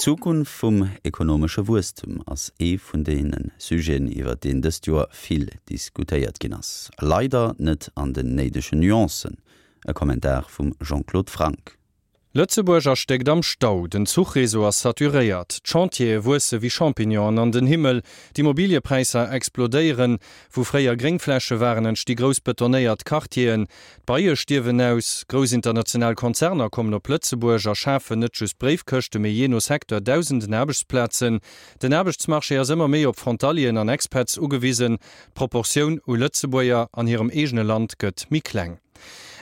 D'Zukunft vum ekonomesche Wuesstem ass ee vun deene Sujeten, iwwer deen dëst Joer vill diskutéiert ginn ass. Leider net an den néidegen Nuancen. E Kommentar vum Jean-Claude Franck. Lëtzebuerg erstéckt am Stau, den Zuchreseau ass saturéiert, d'Chantiere wuesse wéi Champignonen an den Himmel, d'Immobiliëpräisser explodéieren, wou fréier Gréngfläche waren, entsti grouss betonéiert Quartieren, d'Beie stierwen aus, grouss international Konzerner kommen op Lëtzebuerg a schafen net just Bréifkëschte mee jee no Secteur dausenden Aarbechtsplazen, den Aarbechtsmarché ass ëmmer méi op Frontalieren an Expats ugewisen, d'Proportioun u Lëtzebuerger an hirem eegene Land gëtt méi kleng.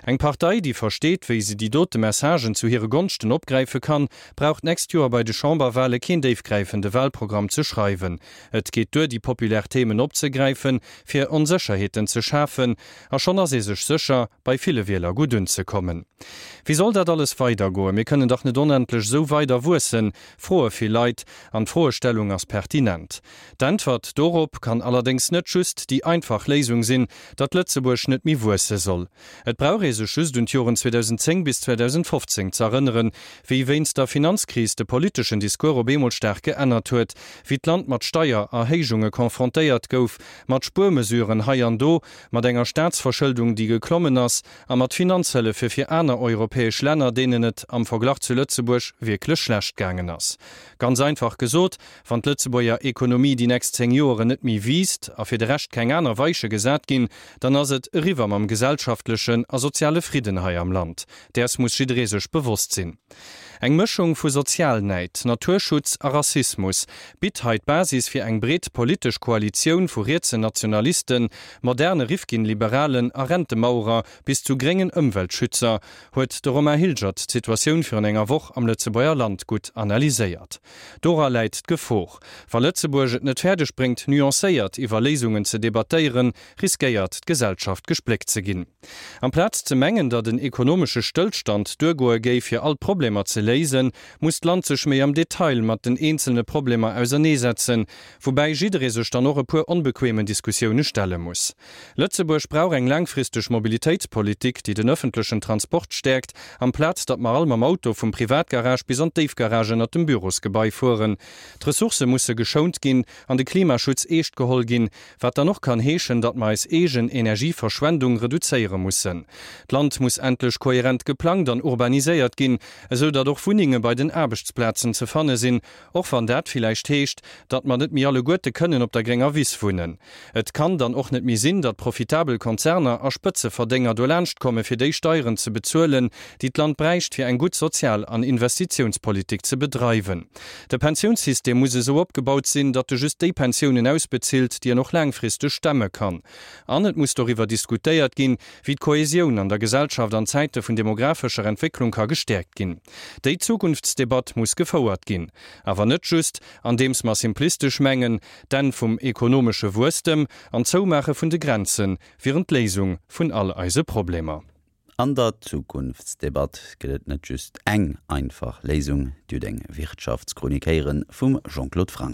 Eng Partei, déi versteet, wéi se déi dote Messagen zu hire Gonschten opgräife kann, brauch d'nächst Joer bei de Chamberwale keen déifgräifende Walprogramm ze schreiwen. Et geet duer, déi populär Themen opzegräifen, fir Onsécherheeten ze schafen, a schonn ass ee sech sécher, bei ville Wieler gutt unzekommen. Wéi soll dat alles weidergoen? Mir kënnen dach net onendlech esou weider wuessen, froe vill Leit, an d'Froestellung ass pertinent. D'Äntwert dorop kann allerdéngs net just déi einfach Léisung sinn, datt Lëtzebuerg net méi wuesse soll. Et brauch ee sech just un d'Joren 2010 bis 2015 z'erënneren, wéi wéinst der Finanzkris de politeschen Discours op eemol staark geännert huet, wéi d'Land mat Steiererhéijunge confrontéiert gouf, mat Spuermesuren hei an do, mat enger Staatsverschëldung, déi geklommen ass, a mat Finanzhëllefe fir aner europäesch Länner, deenen et am Verglach zu Lëtzebuerg wierklech schlecht gaangen ass. Ganz einfach gesot, Wann d'Lëtzebuerger Ekonomie déi nächst 10 Joeren net méi wiisst a fir de Rescht keng aner Weiche gesat ginn, dann ass et eriwwer mam gesellschaftlechen a soziale Fridden hei am Land. Däers muss jidderee sech bewosst sinn. Eng Mëschung vu Sozialnäid, Naturschutz a Rassismus bitt hei d'Basis fir eng breet politesch Koalitioun vu rietsen Nationalisten, moderne Rifkin-Liberalen a Rentemauerer bis zu gréngen Ëmweltschützer, huet de Romain Hilgert d'Situatioun virun enger Woch am Lëtzebuerger Land gutt analyséiert. Dora läit d'Gefor. Wa Lëtzebuerg et net fäerdeg bréngt, nuancéiert iwwer Léisungen ze debattéieren, riskéiert d'Gesellschaft gespléckt ze ginn. Amplaz ze mengen, datt en ekonomesche Stëllstand duergoe géif, fir all d'Problemer ze léisen, muss d'Land sech méi am Detail mat den eenzelne Problemer auserneesetzen, woubäi jidderee sech dann och e puer onbequemen Diskussioune stelle muss. Lëtzebuerg brauch eng laangfristeg Mobilitéitspolitik, déi den ëffentlechen Transport stäerkt, amplaz datt mer all mam Auto vum Privatgarage bis an d'Déifgarage ënnert dem Bürosgebai fueren. D'Ressourcë musse geschount ginn an de Klimaschutz eescht geholl ginn, wat dann och kann heeschen, datt mer eis eegen Energieverschwendung reduzéiere mussen. D'Land muss endlech kohärent geplangt an urbaniséiert ginn, esou datt och Wunnenge bei den Aarbechtsplazen ze fanne sinn, Och wann dat villäicht heescht, datt mer net méi alleguerte kënnen op der grénger Wiss wunnen. Et kann dann och net méi sinn, datt profitabel Konzerner a Spëtzeverdénger dolaanscht komme fir déi Steieren ze bezuelen, déi d'Land bräicht fir eng gutt Sozial an Investitiounspolitik ze bedreiwen. De Pensiounssystem muss esou opgebaut sinn, datt e just déi Pensiounen ausbezilt, déi en och laangfristeg stemme kann. An et muss doriwwer diskutéiert ginn, wéi d'Kohäsioun an der Gesellschaft an Zäite vun demographescher Entwécklung ka gestäerkt ginn. Déi Zukunftsdebatt muss gefouert ginn. Awer net just, andeems mer simplistesch mengen, d'Enn vum ekonomesche Wuesstem an d'Zoumaache vun de Grenze wieren d'Léisung vun all eise Problemer. An der Zukunftsdebatt gëtt et net just eng einfach Léisung. Dir hutt eng Wirtschaftschronik héiere vum Jean-Claude Franck.